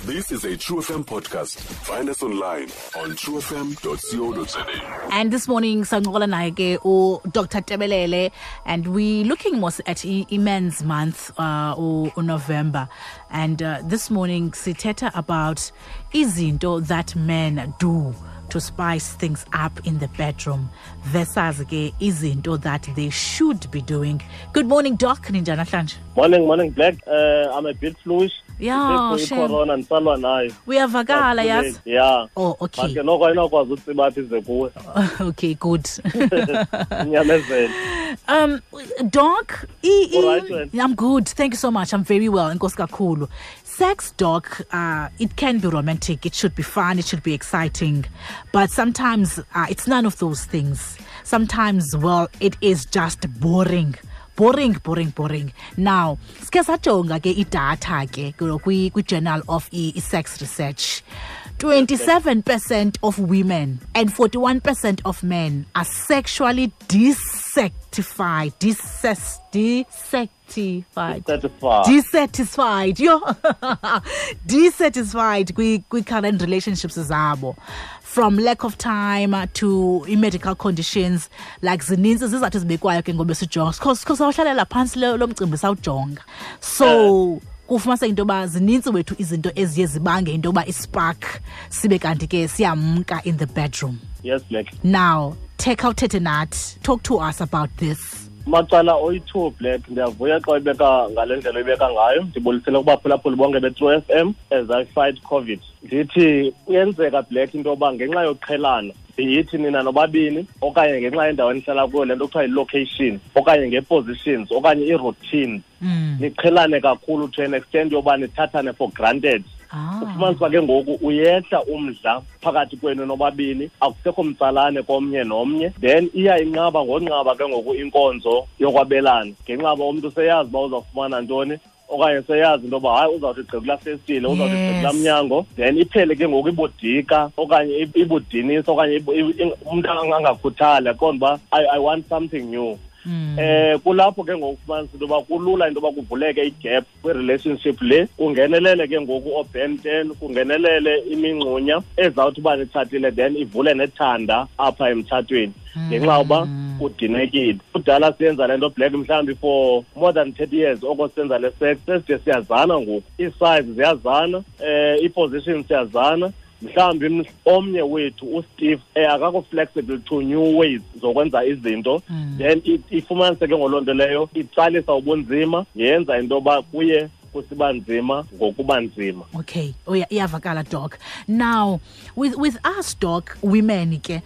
This is a True FM podcast. Find us online on truefm.co.za. And this morning, sancokola naye ke uDr Tebelele, and we looking more at Men's Month, November. And this morning, sithetha about izinto that men do to spice things up in the bedroom versus ke izinto that they should be doing. Good morning, Doc. Ninjani namhlanje? Morning, morning, Black. I'm a bit fluish. Yeah, shame. Corona ndisalwa nayo. Uyavakala, yazi? Yeah. Oh, okay. But ke noko ayinokwazi utsiba apha ize kuwe. Okay, good. Inyamezele. Doc, All right, man. I'm good. Thank you so much. I'm very well. Enkosi kakhulu. Sex, Doc, it can be romantic. It should be fun. It should be exciting. But sometimes it's none of those things. Sometimes, well, it is just boring. Boring, boring, boring. Now, sike sajonga ke idatha ke kwi-Journal of Sex Research. 27% of women and 41% of men are sexually dissatisfied. Dissatisfied. Dissatisfied. Yo. Dissatisfied kwi current relationships zabo. From lack of time to medical conditions, like zininzi zizathu ezibekwayo ke ngoba sijonga. Because awuhlalela phantsi lo mcimbi sawujonga. So kufumaniseka into yoba zininzi wethu izinto eziye zibange into yoba ispark sibe kanti ke siyamka in the bedroom. Yes, Black. Now, take out thethe nathi. Talk to us about this. Macala oyi-2, Black, ndiyavuya xa uyibeka ngale ndlela uyibeka ngayo. Ndibulisele kubaphulaphuli bonke be-True FM as I fight COVID. Ndithi kuyenzeka, Black, into yoba ngenxa yoqhelana yithi nina nobabini okanye ngenxa yendawo enihlala kuyo, le nto kuthiwa yi-location okanye ngee-positions okanye ii-routines, niqhelane kakhulu to an extent yoba nithathane for granted. Ufumanisa uba ke ngoku uyehla umdla phakathi kwenu nobabini, akusekho mtsalane komnye nomnye, then iya inqaba ngonqaba ke ngoku inkonzo yokwabelana ngenxa yoba umntu seyazi uba uzawufumana ntoni okanye seyazi into yoba hayi uzawuthi gqi kulaa festile, uzawuthi gqi kulaa mnyango, then iphele ke ngoku ibudika okanye ibudinisa okanye umntu angakhuthali aqonde uba I want something new. Kulapho ke ngoku ufumanisa into yoba kulula into yoba kuvuleke igap kwi-relationship le, kungenelele ke ngoku ooBen 10, kungenelele imingxunya ezawuthi uba nitshatile, then ivule nethanda apha emtshatweni ngenxa yoba udinekile. Kudala siyenza le nto, Black, mhlawumbi for more than 30 years oko senza le sex, seside siyazana ngoku, ii-size ziyazana, ii-positions siyazana. Mhlawumbi omnye wethu uSteve, akakho flexible to new ways zokwenza izinto, then ifumanise ke ngoloo nto leyo itsalisa ubunzima, yenza into yoba kuye kusiba nzima ngokuba nzima. Okay, oh, yeah, iyavakala, Doc. Now, with us, Doc, women ke,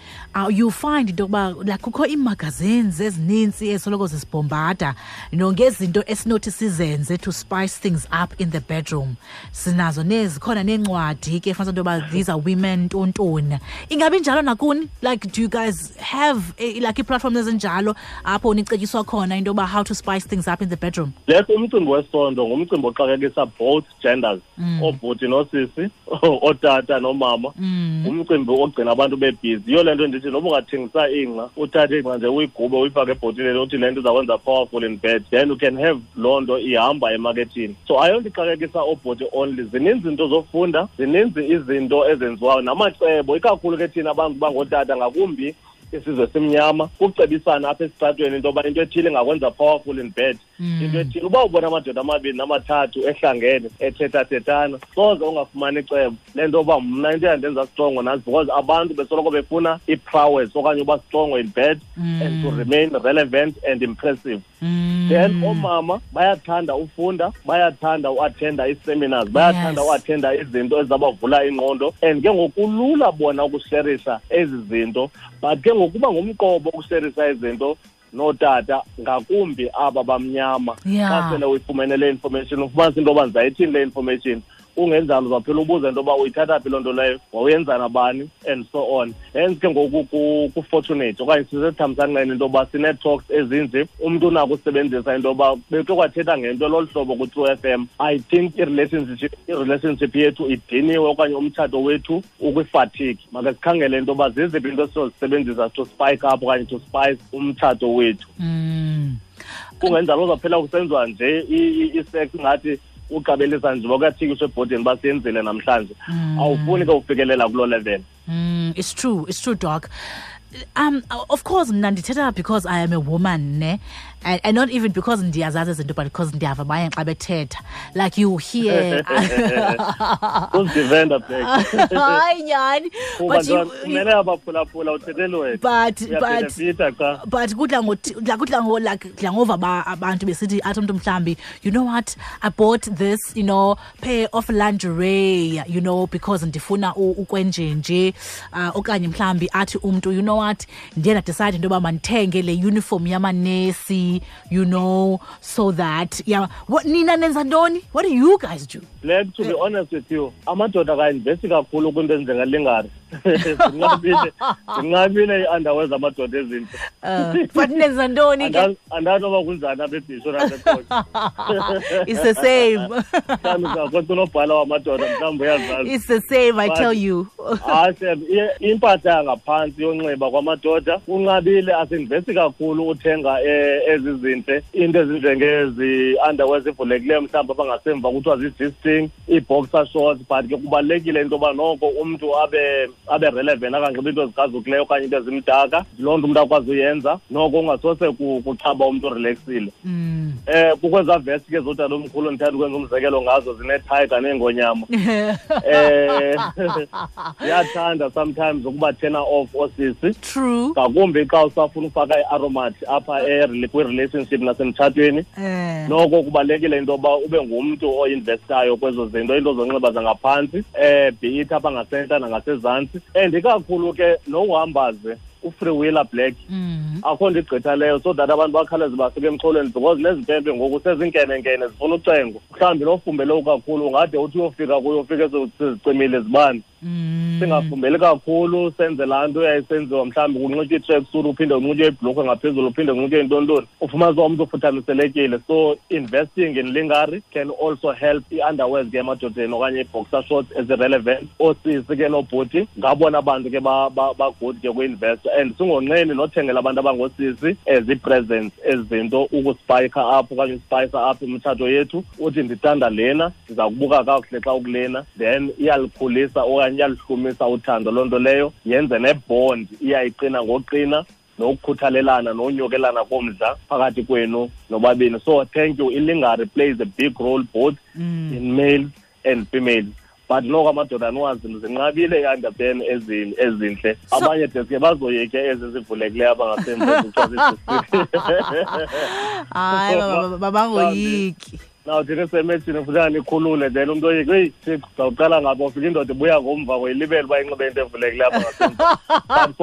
you find into yokuba like kukho ii-magazines ezininzi ezisoloko zisibhombada, ngezinto esinothi sizenze to spice things up in the bedroom. Sinazo nezikhona neencwadi ke fumanisa into yoba these are women ntontoni. Ingabi njalo nakuni? Like, do you guys have like ii-platforms ezinjalo apho nicetyiswa khona into yoba how to spice things up in the bedroom? Black, umcimbi wesondo ngumcimbi oxakekisa both genders, oobhuti noosisi, ootata nomama. Ngumcimbi ogcina abantu bebhizi. Yiyo le nto ndithi noba ungathengisa ingca, uthathe ingca nje uyigube uyifake ebhotileni uthi le nto izakwenza powerful in bed, then you can have loo nto ihamba emakethini. So ayonto ixakekisa oobhuti only. Zininzi izinto zofunda, zininzi izinto ezenziwayo namacebo, ikakhulu ke thina abantu bangootata, ngakumbi isizwe simnyama, kucebisana apha esitratweni into yoba into ethile ingakwenza powerful in bed. Into ethile, uba ubona amadoda amabini namathathu ehlangene ethethathethana, soze ungafumani icebo le nto yoba mna into eyandenza strongo nantsi, because abantu besoloko befuna i-prowess okanye uba strongo in bed and to remain relevant and impressive. Then oomama bayathanda ufunda, bayathanda uattenda ii-seminars, bayathanda uattenda izinto ezizabavula ingqondo, and ke ngoku kulula bona ukusherisa ezi zinto, but ke ngokuba ngumqobo ukusherisa izinto nootata, ngakumbi aba bamnyama. Xa sele uyifumene le information, ufumanisa into yoba ndizayithini le information, ungenjalo uzaphela ubuze into yoba uyithatha phi loo nto leyo, wawuyenza nabani, and so on. Hence ke ngoku ku-fortunate okanye sisethamsanqeni into yoba sinee-talks ezinje, umntu unako usebenzisa into yoba bekhe kwathetha ngento lolu hlobo ku-True FM. I think i-relationship yethu idiniwe okanye umtshato wethu ukwi-fatigue. Make sikhangele into yoba ziziphi into esizozisebenzisa to spike up okanye to spice umtshato wethu. Kungenjalo uzaphela kusenziwa nje i-sex ngathi Uqabelisa nje bakathikiswe ebhodini basenzile namhlanje. Awufuni ke ufikelela kuloo level. It's true, it's true, Doc. Of course mna ndithetha because I am a woman, ne, and not even because ndiyazazi izinto, but because ndiyava abanye xa bethetha, like you hear Uzidivenda, Black. Hayi, nyhani, but you, kumele abaphulaphula uthethele wena. But Uyabenefita cha. But kudla ngo like kudla ngova abantu besithi, athi umntu mhlambi, "You know what, I bought this pair of lingerie because ndifuna ukwenjenje," okanye mhlambi athi umntu, "You know what, ndiye ndadecide into yoba mandithenge le uniform yamanesi so that," yeah. What, nina nenza ntoni? What do you guys do? Black, to be honest with you, amadoda akainvesti kakhulu kwinto ezinjengalingerie. Zinqabile ii-underwear zamadoda ezintle. But nenza ntoni ke? Andazi noba kunjani apha eBhisho naseQonce. It's the same. Mhlawumbi uzawukwenza unobhala wamadoda, mhlawumbi uyazazi. It's the same, I But tell you. Hayi, Sam, impahla yangaphantsi yonxiba kwamadoda kunqabile, asinvesti kakhulu uthenga ezi zintle, into ezinjengezi underwear zivulekileyo, mhlawumbi abangasemva kuthiwa zii-G-string, ii-boxer shorts, but ke kubalulekile into yoba noko umntu abe relevant, anganxibi into ezikrazukileyo okanye into ezimdaka. Loo nto umntu akwazi uyenza noko ungasose kuchaba umntu orelaxile. Kukwezaa vest ke zodala omkhulu ndithanda ukwenza umzekelo ngazo, zinethayiga neengonyama. Ziyathanda sometimes ukuba turn off oosisi. True. Ngakumbi xa usafuna ufaka i-aromat apha kwi-relationship nasemtshatweni. Noko kubalulekile into yoba ube ngumntu oinvestayo kwezo zinto, into zonxiba zangaphantsi, be it apha ngasentla nangasezantsi. And ikakhulu ke nohamba ze ufreewheeler, Black. Akho nto igqitha leyo so that abantu bakhawuleze basuke emxholweni, because nezimpempe ngoku sezinkenenkene zifuna ucengo. Mhlawumbi nofumbele kakhulu ungade uthi uyofika kuyo ufike sezicimile izibane. Singafumbeli kakhulu, senze laa nto yayisenziwa, mhlawumbi kunxitywe i-tracksuit, uphinde unxitywe ibhlukhwe ngaphezulu, uphinde unxitywe intontoni, ufumanise uba umntu ufuthamiselekile. So investing in lingerie can also help. I-underwears ke emadodeni okanye ii-boxer shorts ezi-relevant, oosisi ke noobhuti ngabona bantu ke bagood ke kwi-investa, and singonqeni nothengela abantu abangoosisi ezi-presents, ezi zinto ukuspayikha apho okanye uspayisa apho imitshato yethu. Uthi ndithanda lena, ndiza kubuka kakuhle xa ukulena, then iyalikhulisa okanye iyalihlumisa uthando loo nto leyo, yenze nebond iyayiqina ngoqina, nokukhuthalelana nonyokelana komdla phakathi kwenu nobabini. So thank you, ilingerie plays a big role both in males and females, but noko amadoda aniwazi, zinqabile i-underpan ezintle. Abanye deske bazoyike ezi zivulekileyo abangasemva. Hayi, babangoyiki. Now thina semethini funeka nikhulule, then umntu oyike, eyi Thixo, zawuqala ngapha ufika indoda ibuya ngomva ngoyilibele uba inxibe into evulekileyo apha ngasemva. But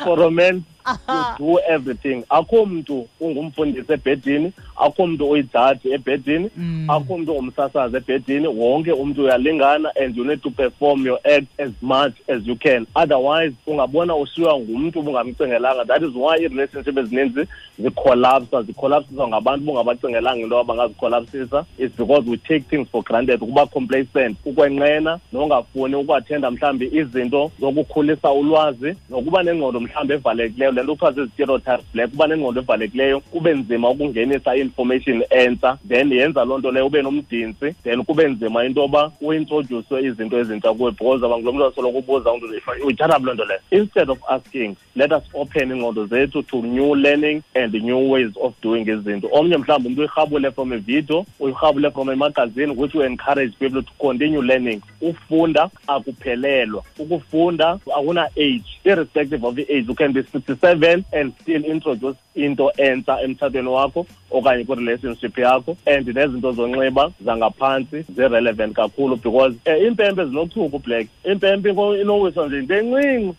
for romance you do everything. Akho mntu ungumfundisi ebhedini, akho mntu uyijaji ebhedini, akho mntu ungumsasazi ebhedini. Wonke umntu uyalingana and you need to perform your act as much as you can, otherwise ungabona ushiywa ngumntu ubungamcingelanga. That is why ii-relationship ezininzi zikholapsa, zikholapsiswa ngabantu bungabacingelanga into yoba bangazikholapsisa. It's because we take things for granted, ukuba complacent, ukwenqena nongafuni ukuathenda mhlawumbi izinto zokukhulisa ulwazi, nokuba nengqondo mhlawumbi evalekileyo, le nto kuthiwa zii-stereotypes, Black. Kuba nengqondo evalekileyo kube nzima ukungenisa i-information entsha, then yenza loo nto leyo ube nomdintsi, then kube nzima into yoba uintroduce izinto ezintsha kuwe, because abangulo mntu asoloko ubuza umntu, uyithatha phi loo nto leyo. Instead of asking, let us open iingqondo zethu to new learning and new ways of doing izinto. Omnye mhlawumbi umntu uyirhabule from a video, uyirhabule from a magazine, which will encourage people to continue learning. Ufunda akuphelelwa, ukufunda akuna age. Irrespective of the age, you can be 67 and still introduce into entsha emtshatweni wakho okanye kwi-relationship yakho. And nezinto zonxiba zangaphantsi zi-relevant kakhulu, because iimpempe zinochuku, Black. Impempe inowiswa nje into encinci,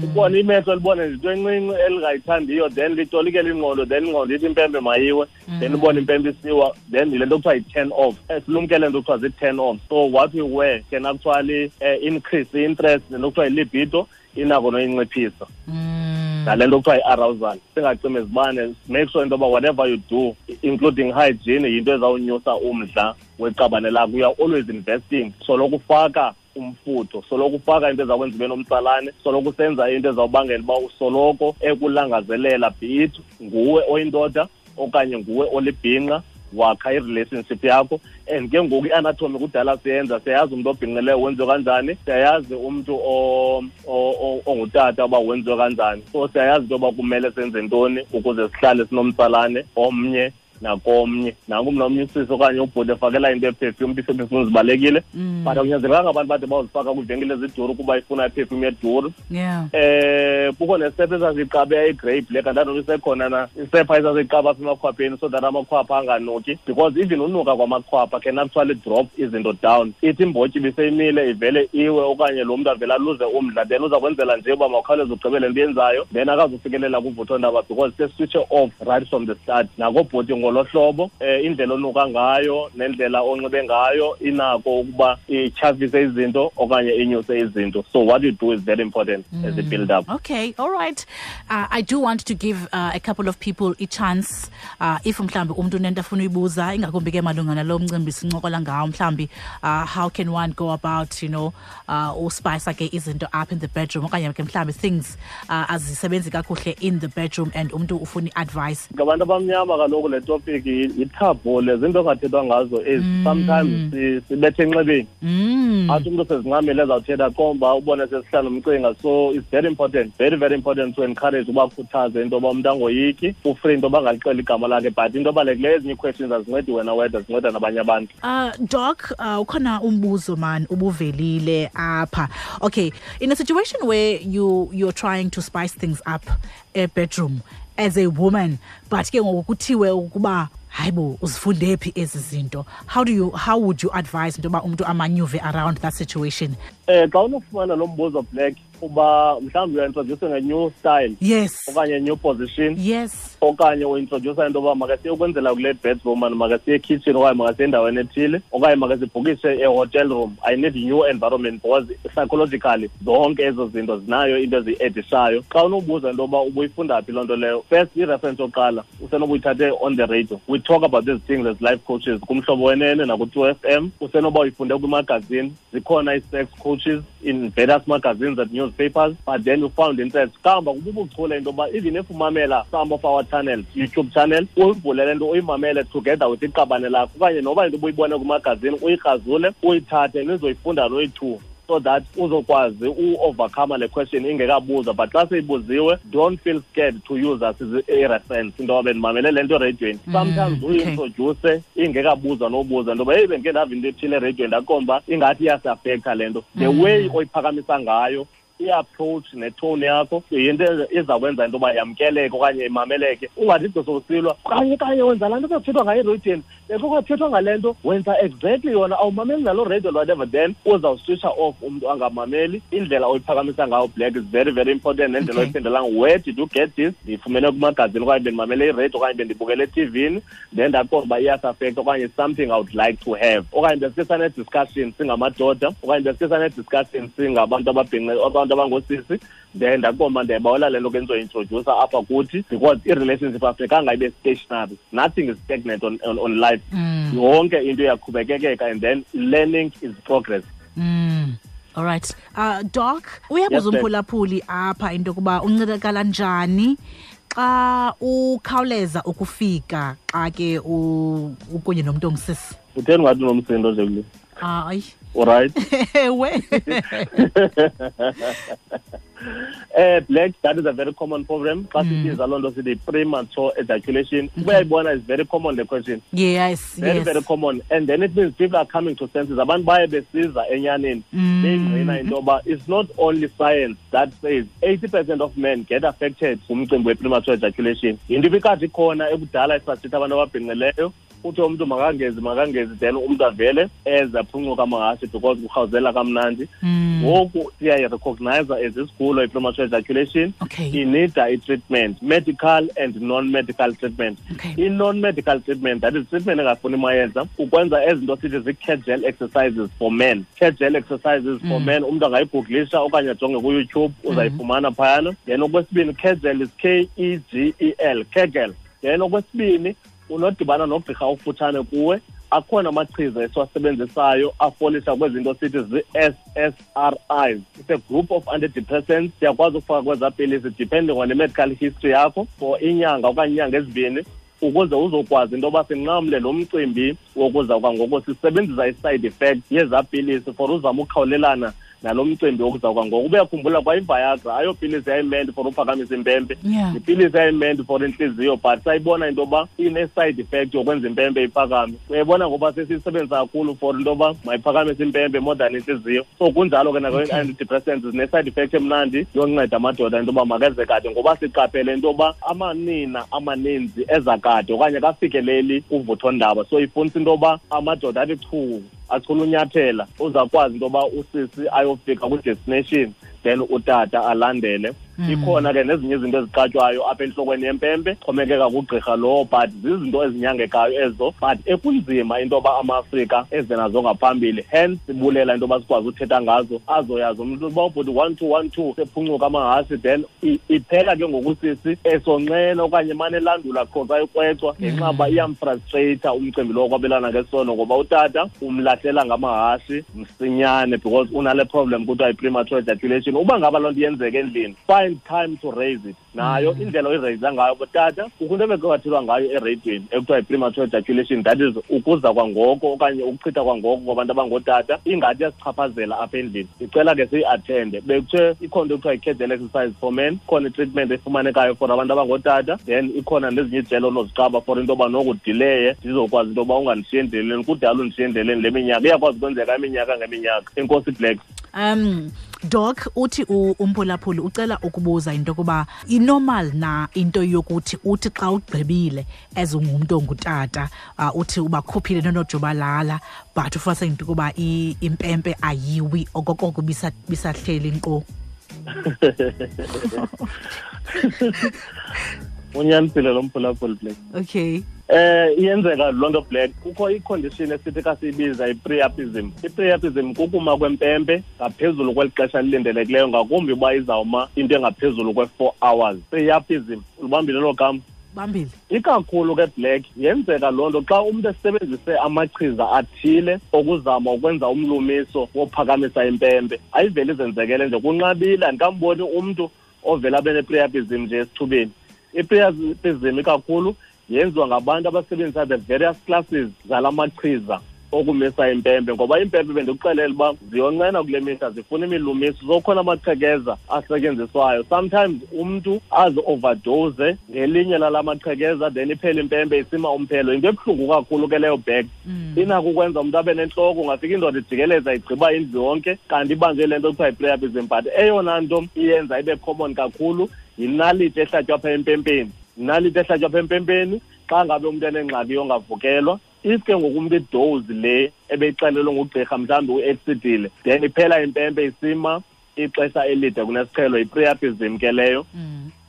ubone imehlo libone nje into encinci elingayithandiyo, then litolikele ingqondo, then ingqondo ithi impempe mayiwe, then ubone impempe isiwa, then yile nto kuthiwa yi-turn off. Silumkele nto kuthiwa zii-turn off. So what we wear can actually increase i-interest, nento kuthiwa yi-libido inako noyinciphisa, nale nto kuthiwa yi-arousal. Singacimi izibane, make sure into yoba whatever you do, including hygiene, yinto ezawunyusa umdla weqabane lakho. You are always investing, soloko ufaka umfutho, soloko ufaka into ezawukwenza ube nomtsalane, soloko usenza into ezawubangela uba usoloko ekulangazelela, be it nguwe oyindoda okanye nguwe olibhinqa. Wakha i-relationship yakho. And ke ngoku i-anatomy kudala siyenza, siyayazi umntu obhinqileyo wenziwe kanjani, siyayazi umntu ongutata uba wenziwe kanjani. So siyayazi into yoba kumele senze ntoni ukuze sihlale sinomtsalane omnye nakomnye. Nanku mna omnye usisi okanye ubhuti efakela into ye-perfume, iiperfume zibalulekile, but akunyanzelekanga abantu bade bawuzifaka kwiivenkile eziduru kuba ifuna i-perfume eduru. Kukho nesepha esasiyiqabe i-grey black, andazi noba isekhona na isepha esasiyiqaba apha emakhwapheni so that amakhwapha anganuki, because even unuka kwamakhwapha can actually drop izinto down. Ithi imbotyi ibiseyimile ivele iwe, okanye lo mntu avele aluze umdla, then uza kwenzela nje uba mawukhawuleze ugqibele into yenzayo, then akazufikelela kuvuthondaba because seswitche off right from the start. Nakobhuti ngolo hlobo, indlela onuka ngayo nendlela onxibe ngayo inako ukuba ityhafise izinto okanye inyuse izinto. So what you do is very important as a build up. Okay, all right. I do want to give a couple of people a chance, if mhlambi umntu unento afuna uyibuza, ingakumbi ke malunga nalo mcimbi sincokola ngawo, mhlambi how can one go about, you know, uspice ke izinto up in the bedroom, okanye ke mhlambi things azisebenzi kakuhle in the bedroom and umntu ufuna i-advice. Ngabantu abamnyama kaloku le topic yi-taboo, le zinto ongathethwa ngazo ezi. Sometimes sibethe enxebeni, athi umntu sezincamile ezawuthetha komba ubone sesihlala umcinga. So it's very important, very very important to encourage, ubakhuthaze into yoba umntu angoyiki, u-free into yoba angalixeli igama lakhe, but into ebalulekileyo ezinye ii-questions azincedi wena wedwa, zinceda nabanye abantu. Doc, ukhona umbuzo man ubuvelile apha. Okay, in a situation where you're trying to spice things up a bedroom as a woman, but ke ngoku kuthiwe ukuba hayibo uzifunde phi ezi zinto, how would you advise into yoba umntu a-maneuver around that situation? Xa unofumana lo mbuzo, Black, uba mhlawumbi uya-introduce nge-new style, okanye new position, okanye u-introduce into yoba makasiye ukwenzela kule bedroom, and makasiye ekitchen, okanye makasiye endaweni ethile, okanye makasibhukishe e-hotel room, I need new environment, because psychologically zonke ezo zinto zinayo into eziyi-addishayo. Xa unobuza into yoba ubuyifunda phi loo nto leyo, first i-reference yokuqala usenoba on the radio. We talk about these things as life coaches kuMhlobo Wenene naku-2 FM. Usenoba uyifunde kwimagazine, zikhona ii-sex coaches in various magazines and newspapers, but then you found interest. Kamba kububuchule into yoba even if umamela some of our channels, YouTube channel, uyivule le nto uyimamele together with iqabane lakho, okanye noba into ubuyibone kumagazini uyikrazule uyithathe nizoyifunda noyi-two, so that uzokwazi u-overcome le question ingekabuzwa. But xa seyibuziwe, don't feel scared to use us as a reference, into yoba bendimamele le nto ereyidweni. Sometimes uyi-introduce ingekabuzwa nobuza into yoba heyi, bendike ndava into ethile ereyidweni, ndaqomba ingathi iyasi-affecta le nto. The way oyiphakamisa ngayo, i-approach ne-tone yakho, yinto ezawukwenza into yoba yamkeleke okanye imameleke. Ungathi gqi sowusilwa kanye kanye wenza laa nto bekuthethwa ngayo ereyidweni, bekukathethwa ngale nto, wenza exactly yona, awumameli naloo radio, whatever, then uzawuswitcha off umntu angamameli. Indlela oyiphakamisa ngayo, Black, is very very important, nendlela oyiphendulanga. Where did you get this? Ndiyifumene kumagazini, okanye bendimamele iradio, okanye bendibukele etivini, then ndaqonda uba iyasi-affecta, okanye something I would like to have, okanye besike sane-discussion singamadoda, okanye besike sane-discussion singabantu ababhinqe, abantu abangosisi, then ndaqonda ndiyayibawela le nto ke ndizoyi-introduce apha kuthi, because i-relationship afunekanga ibe stationary. Nothing is stagnant on life. Yonke into iyaqhubekekeka, and then learning is progress. All right. Doc, uyabuza umphulaphuli apha into yokuba uncedakala njani xa ukhawuleza ukufika xa ke ukunye nomntu ongusisi. Utheni ngathi unomsindo nje kule? Hayi. Alright. Ewe. Black, that is a very common problem. Xa sibiza loo nto sithi premature ejaculation. Uyayibona, is very common the question. Very, very common. And then it means people are coming to senses. Abantu baye besiza enyaneni. Beyingqina into yoba it's not only science that says 80% of men get affected ngumcimbi we-premature ejaculation. Yinto ibikade ikhona ekudala isasitha abantu ababhinqileyo. Uthi umntu makangezi, makangezi, then umntu avele eze aphuncuka amahashe because kurhawuzela kamnandi. Ngoku siyayi-recognize as isigulo i-premature ejaculation. Inida i-treatment, medical and non-medical treatment. I-non-medical treatment, that is treatment engafuni mayeza, ukwenza ezinto sithi zii-Kegel exercises for men. Kegel exercises for men, umntu angayi-googlisha okanye ajonge kuYouTube, uzayifumana phayana. Then okwesibini, Kegel is Kegel, Kegel. Then okwesibini, unodibana nogqirha okufutshane kuwe, akhona amachiza esiwasebenzisayo afolisha kwezinto sithi zii-SSRIs. It's a group of antidepressants. Siyakwazi ukufaka kwezaa pilisi depending on the medical history yakho for inyanga okanye inyanga ezibini. Ukuze uzokwazi into yoba sinqamle lo mcimbi wokuza kwangoko, sisebenzisa i-side effect yezaa pilisi for uzama ukukhawulelana nalo mcimbi wokuza kwangoko. Ubuyakhumbula kwa iViagra ayopilisi yayimeant for uphakamisa impempe, ipilisi yayimeant for intliziyo, but sayibona into yoba ine-side effect yokwenza impempe iphakame. Uyayibona ngoba sesiyisebenzisa kakhulu for into yoba mayiphakamise impempe more than intliziyo. So kunjalo ke nakwi-antidepressants, zine-side effect emnandi yonceda amadoda into yoba makeze kade, ngoba siqaphele into yoba amanina amaninzi eza kade okanye kafikeleli kuvuthondaba. So ifunisa into yoba amadoda athi chu achula unyathela, uzakwazi into yoba usisi ayofika kwi-destination, then utata alandele. Ikhona ke nezinye izinto eziqatywayo apha entlokweni yempempe, xhomekeka kugqirha lowo, but zizinto ezinyangekayo ezo, but ekunzima into yoba ama-Afrika eze nazo ngaphambili. Hence sibulela into yoba sikwazi uthetha ngazo, azoyazi umntu uba ubhuti 1 2 1 2 sephuncuka amahasi, then iphela ke ngokusisi esonqena okanye emane elandula qho xa ikrwecwa, ngenxa uba iyamfrustrata umcimbi lowo kwabelana ngesono, ngoba utata umlahlela ngamahasi msinyane because unale problem kuthiwa yi-premature ejaculation. Uba ngaba loo nto iyenzeka endlini, find time to raise it. Nayo indlela oyireyisa ngayo botata, kukho into ebekwathethwa ngayo ereyidweni ekuthiwa yi-premature ejaculation, that is ukuza kwangoko okanye ukuchitha kwangoko kwabantu abangootata, ingathi iyasichaphazela apha endlini. Ndicela ke siyi-athende. Bekuthiwe ikhona into ekuthiwa yi-Kegel exercise for men, ikhona i-treatment efumanekayo for abantu abangootata, then ikhona nezinye ijelo onoziqaba for into yoba nokudileye, ndizokwazi into yoba ungandishiyi endleleni. Kudala undishiye endleleni le minyaka, iyakwazi ukwenzeka iminyaka ngeminyaka. Enkosi Black. Doc, uthi umphulaphuli ucela ukubuza into yokuba inormal na into yokuthi uthi xa ugqibile as ungumntu ongutata, uthi ubakhuphile nonojubalala, but ufumanise into yokuba impempe ayiwi okokoko bisahleli nkqo. Unyanisile lo mphulaphuli, Black. Okay. Iyenzeka loo nto, Black. Kukho i-condition esithi xa siyibiza i-priapism. I-priapism kukuma kwempempe ngaphezulu kweli xesha lilindelekileyo, ngakumbi uba izawuma into engaphezulu kwe-4 hours. Priapism, ulibambile loo gama? Bambile. Ikakhulu ke, Black, yenzeka loo nto xa umntu esebenzise amachiza athile okuzama ukwenza umlumiso wophakamisa impempe. Ayiveli izenzekele nje, kunqabile, andikamboni umntu ovela abe ne-priapism nje esithubeni. I-priapism ikakhulu yenziwa ngabantu abasebenzisa the various classes zala machiza okumisa impempe, ngoba impempe bendikuxelela uba ziyonqena kule mihla, zifuna imilumiso. So khona amaqhekeza asetyenziswayo, sometimes umntu azi-overdose ngelinye lala maqhekeza, then iphele impempe isima umphelo. Into ebuhlungu kakhulu ke leyo, Black. Inako ukwenza umntu abe nentloko, ungafika indoda ijikeleza igqiba indlu yonke, kanti ibanjwe le nto kuthiwa yi-priapism. But eyona nto iyenza ibe common kakhulu yinaliti ehlatywa apha empempeni. Yinaliti ehlatywa apha empempeni xa ngabe umntu enengxaki yongavukelwa. If ke ngoku umntu idose le ebeyixelelwe ngugqirha mhlawumbi u-exceedile, then iphela impempe isima ixesha elide kunesiqhelo, yi-priapism ke leyo.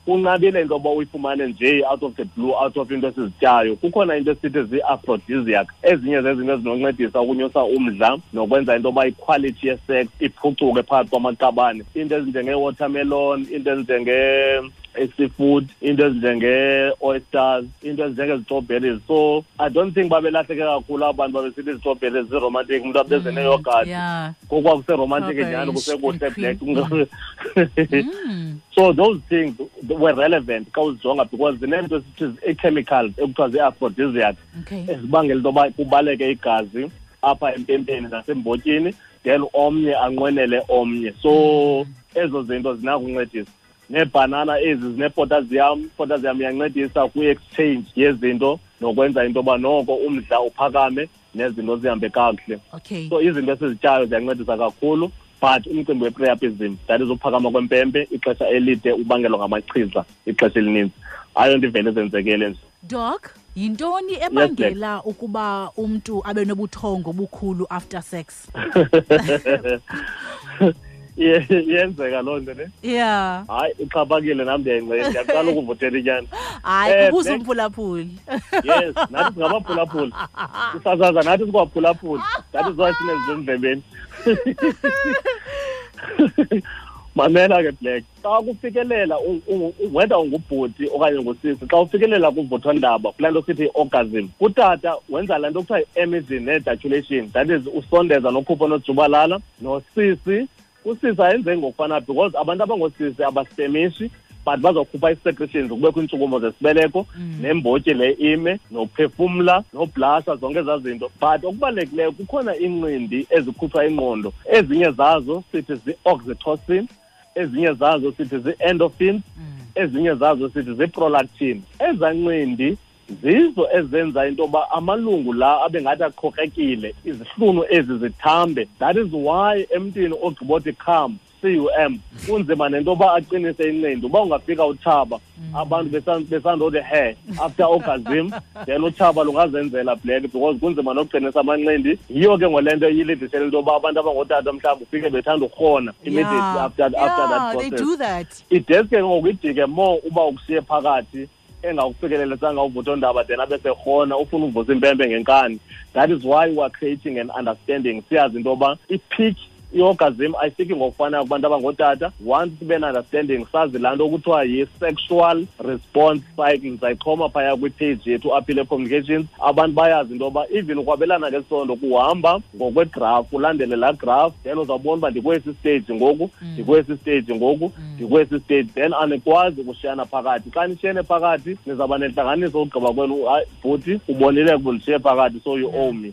Kunqabile into yoba uyifumane nje out of the blue, out of into esizityayo. Kukhona into esithi zii-aphrodisiac, ezinye zezinto ezinoncedisa ukunyusa umdla nokwenza into yoba iquality ye-sex iphucuke phakathi kwamaqabane. Into ezinjengee-watermelon, into ezinjenge-seafood, into ezinjenge-oysters, into ezinjengezi-strawberries. So I don't think babelahleke kakhulu abantu babesithi izi-strawberries zi-romantic, umntu abeze neyogathi. Kokwakuseromantic nyhani, kusekuhle, Black. So those things were relevant xa uzijonga, because zineento esithi ii-chemicals ekuthiwa zii-aphrodisiac ezibangela into yoba kubaleke igazi apha empempeni nasembotyini, then omnye anqwenele omnye. So ezo zinto zinakuncedisa. Neebhanana ezi zine-potassium, potassium iyancedisa kwi-exchange yezinto nokwenza into yoba noko umdla uphakame nezinto zihambe kakuhle. So izinto esizityayo ziyancedisa kakhulu, but umcimbi we-priapism, that is uphakama kwempempe ixesha elide ubangelwa ngamachiza ixesha elininzi, ayonto ivele zenzekele nje. Doc, yintoni ebangela ukuba umntu abe nobuthongo obukhulu after sex? Iyenzeka loo nto ne? Hayi, ixhaphakile, nam ndiyayingcela, ndiyaqala ukuvuthela inyani. Hayi, kubuza umphulaphuli. Yes, nathi singabaphulaphuli. Sisasaza nathi sikwaphulaphuli. That is why sinezinto endlebeni. Mamela ke, Black. Xa kufikelela whether ungubhuti okanye ungusisi, xa ufikelela kuvuthondaba, kulaa nto sithi i-orgasm, kutata wenza laa nto kuthiwa yi-emission ne-ejaculation, that is usondeza nokhupha onojubalala. Nosisi, usisi ayenze ngokufana, because abantu abangoosisi abasitemishi, But bazokhupha ii-secretions, kubekho iintshukumo zesibeleko, nembotyi le ime, nophefumla, noblasha, zonke ezaa zinto. But okubalulekileyo, kukhona iincindi ezikhutshwa ingqondo. Ezinye zazo sithi zii-oxytocin, ezinye zazo sithi zii-endorphins, ezinye zazo sithi zii-prolactin. Ezaa ncindi zizo ezenza into yoba amalungu la abe ngathi aqhokrekile, izihlunu ezi zithambe. That is why emntwini ogqibothi cum, C-U-M, kunzima nento yoba aqinise incindi. Uba ungafika utshaba, abantu besandothi he after orgasm, then utshaba lungazenzela, Black, because kunzima nokuqinisa amanqindi. Yiyo ke ngole nto iyilidishele into yoba abantu abangootata mhlawumbi ufike bethanda ukurhona immediately after that They process. do that. Ideske ke ngoku ijike more uba ukushiye phakathi, engakufikelelisanga uvuthondaba, then abe serhona, ufuna uvusa impempe ngenkani. That is why we are creating an understanding, siyazi into yoba i-peak i-orgasm ayifiki ngokufanayo kubantu abangootata. Once sibe ne-understanding, sazi laa nto kuthiwa yi-sexual response cycle, ndizayixhoma phaya kwipage yethu Aphile Communications. Abantu bayazi into yoba even ukwabelana ngesondo kuhamba ngokwegraph, ulandele laa graph, then uzawubona uba ndikwesi stage ngoku, ndikwesi stage ngoku, ndikwesi stage. Then anikwazi ukushiyana phakathi. Xa nishiyene phakathi, nizawuba nentlanganiso ukugqiba kwenu. Hayi bhuti, ubonile ukuba ndishiye phakathi, so you owe me.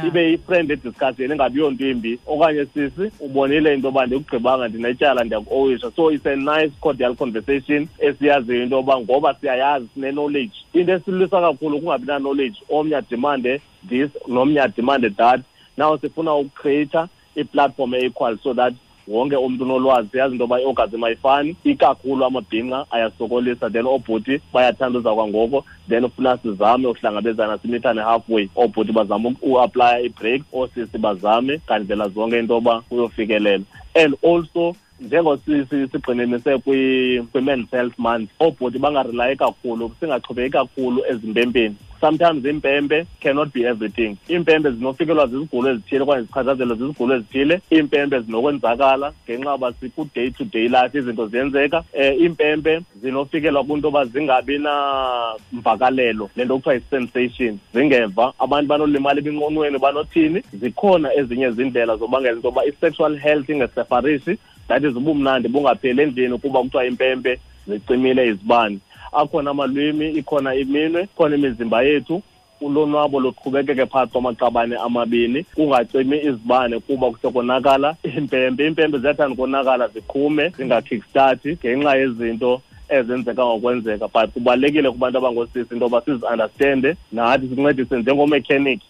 Ibe yi-friendly discussion, ingabi yonto imbi. Okanye sisi, ubonile into yoba ndikugqibanga, ndinetyala, ndiyaku-owisha. So it's a nice cordial conversation esiyaziyo into yoba ngoba siyayazi, sine-knowledge. Into esilwisa kakhulu kungabi na-knowledge, omnye adimande this, nomnye adimande that. Now sifuna ukucreata i-platform e-equal so that wonke umntu unolwazi. Siyazi into yoba i-orgasm ayifani, ikakhulu amabhinqa ayasokolisa, then oobhuti bayathanda uza kwangoko. Then ufuna sizame uhlangabezana, simithane halfway. Oobhuti bazame uapplya i-break, oosisi bazame ngandlela zonke into yoba kuyofikelela. And also njengosigxininise kwi-Men's Health Month, oobhuti bangarelayi kakhulu, singaxhomekeki kakhulu ezimpempeni. Sometimes iimpempe cannot be everything. Iimpempe zinofikelwa zizigulo ezithile okanye zichatshazelwe zizigulo ezithile. Iimpempe zinokwenzakala ngenxa yoba siku-day to day life, izinto ziyenzeka. Iimpempe zinofikelwa kwinto yoba zingabi namvakalelo, le nto kuthiwa yi-sensation, zingeva. Abantu banolimala eminqonweni, banothini. Zikhona ezinye izindlela zobangela into yoba i-sexual health ingesefarishi, that is ubumnandi bungapheli endlini kuba kuthiwa impempe zicimile izibane. Akhona amalwimi, ikhona iminwe, ikhona imizimba yethu. Ulonwabo luqhubekeke phakathi kwamaqabane amabini, kungacimi izibane kuba kusekonakala impempe. Iimpempe ziyathanda ukonakala, ziqhume, zingakickstart ngenxa yezinto ezenzeka ngokwenzeka. But kubalulekile kubantu abangoosisi into yoba sizi-understande nathi, sincedise njengomechanic,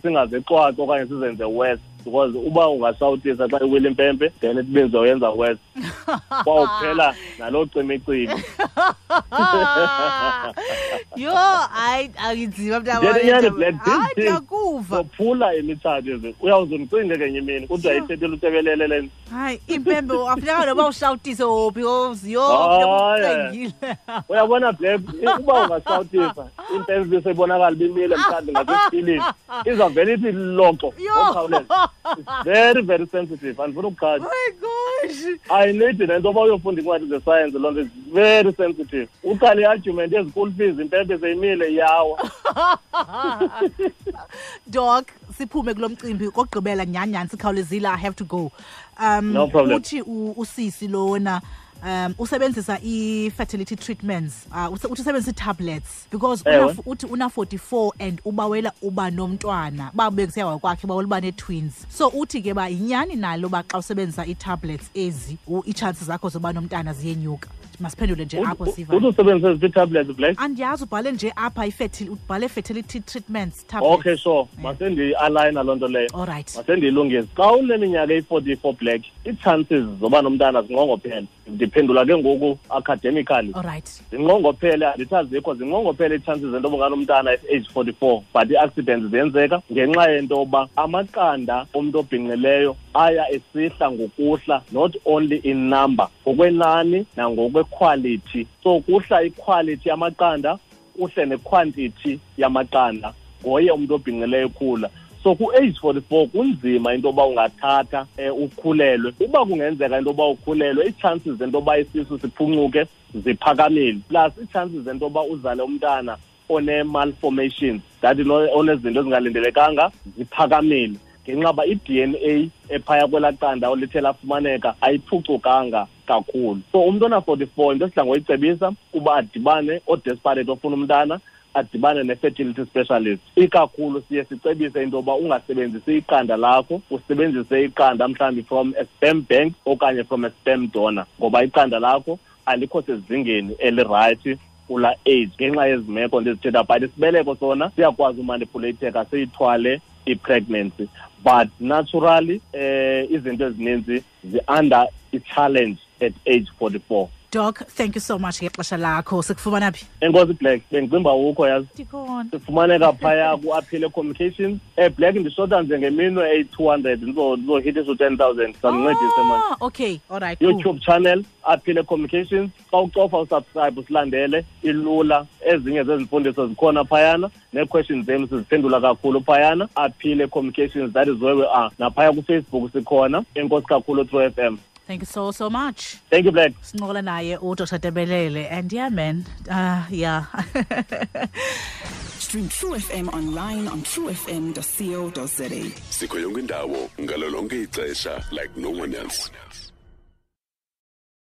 singazixwaxi okanye sizenze worse, because uba ungashawutisa xa iwile impempe, then it means uyenza worse, kwawuphela naloo cimicimi. Yho, hayi, akinzima. Nyani, Black, Hayi, ndiyakuva. Zophula imitshato ezi. Uyawuze undicinge kenye imini, kuthiwa ithethile utebelele le nto. Hayi, impempe afuneka noba ushawutise wophi, yho, Hayi. ucengile. Uyabona Black, uba ungashawutisa impempe ibiseyibonakala ibimile mhlawumbi ngasesipilini, izawuvele ithi loxo Yho. ngokukhawuleza. It's very very sensitive, andifuna ukuqhatha. My gosh. Ayinidi nento yoba uyofunda iincwadi zesayensi, loo nto is very sensitive. Uqale i-argument yezi-school fees, impempe seyimile, iyawa. Doc, siphume kulo mcimbi kokugqibela nyhani nyhani, sikhawulezile, I have to go. No problem. Uthi usisi lona usebenzisa i-fertility treatments, uthi usebenzisa ii-tablets because uthi una-44 and ubawela uba nomntwana, babekusiya kwakhe bawela uba nee-twins. So uthi ke ba yinyani nalo uba xa usebenzisa ii-tablets ezi, ii-chances zakho zoba nomntana ziyenyuka? Masiphendule nje apho, siva. Uthi usebenzisa eziphi ii-tablets, Black? Andiyazi, ubhale nje apha ubhale fertility treatments tablets. Okay, sure, masendiyi-alayina loo nto leyo. All right. Masendiyilungise. Xa uneminyaka eyi-44, Black, ii-chances zoba nomntana zinqongophele. Ndiphendula ke ngoku academically. All right. Zinqongophele, andithi azikho, zinqongophele ii-chances zento yoba unganomntana at age 44, but ii-accidents ziyenzeka ngenxa yento yoba amaqanda omntu obhinqileyo aya esihla ngokuhla, not only in number, ngokwenani nangokwequality. So kuhla iquality yamaqanda, kuhle nequantity yamaqanda ngoye umntu obhinqileyo ekhula. So ku-age 44 kunzima into yoba ungathatha ukhulelwe. Uba kungenzeka into yoba ukhulelwe, ii-chances zento yoba isisu siphuncuke ziphakamile, plus ii-chances zento yoba uzale umntana one-malformations, that onezinto ezingalindelekanga, ziphakamile. Ngenxa uba i-DNA ephaya kwelaa qanda olithe lafumaneka ayiphucukanga kakhulu. So umntu ona-44, into esidla ngoyicebisa kuba adibane, odesperate ofuna umntana, adibane ne-fertility specialist. Ikakhulu siye sicebise into yoba ungasebenzisi iqanda lakho, usebenzise iqanda mhlawumbi from a sperm bank okanye from a sperm donor, ngoba iqanda lakho alikho sezingeni elirayithi kula age ngenxa yezi meko ndizithetha. But isibeleko sona siyakwazi umanipulate-eka, siyithwale i-pregnancy, but naturally izinto ezininzi zi-under i-challenge at age 44. Doc, thank you so much ngexesha lakho. Sikufumana phi? Enkosi, Black. Bendicimba ukho, yazi. Ndikhona. Sifumaneka phaya ku-Aphile Communications. Black, ndishota nje ngeminwe eyi-200, ndizohitisa u-10 000. Sandincedise, man. Oh, okay, all right, cool. YouTube channel, Aphile Communications. Xa ucofa usubscribe, usilandele, ilula. Ezinye zezimfundiso zikhona phayana, nee-questions zenu siziphendula kakhulu phayana. Aphile Communications, that is where we are. Naphaya kuFacebook sikhona. Enkosi kakhulu, True FM. Thank you so, so much. Thank you, Black. Sincokola naye uDr Tebelele, and yeah, man, yeah. Stream True FM online on truefm.co.za. Sikho yonke indawo ngalo lonke ixesha like no one else.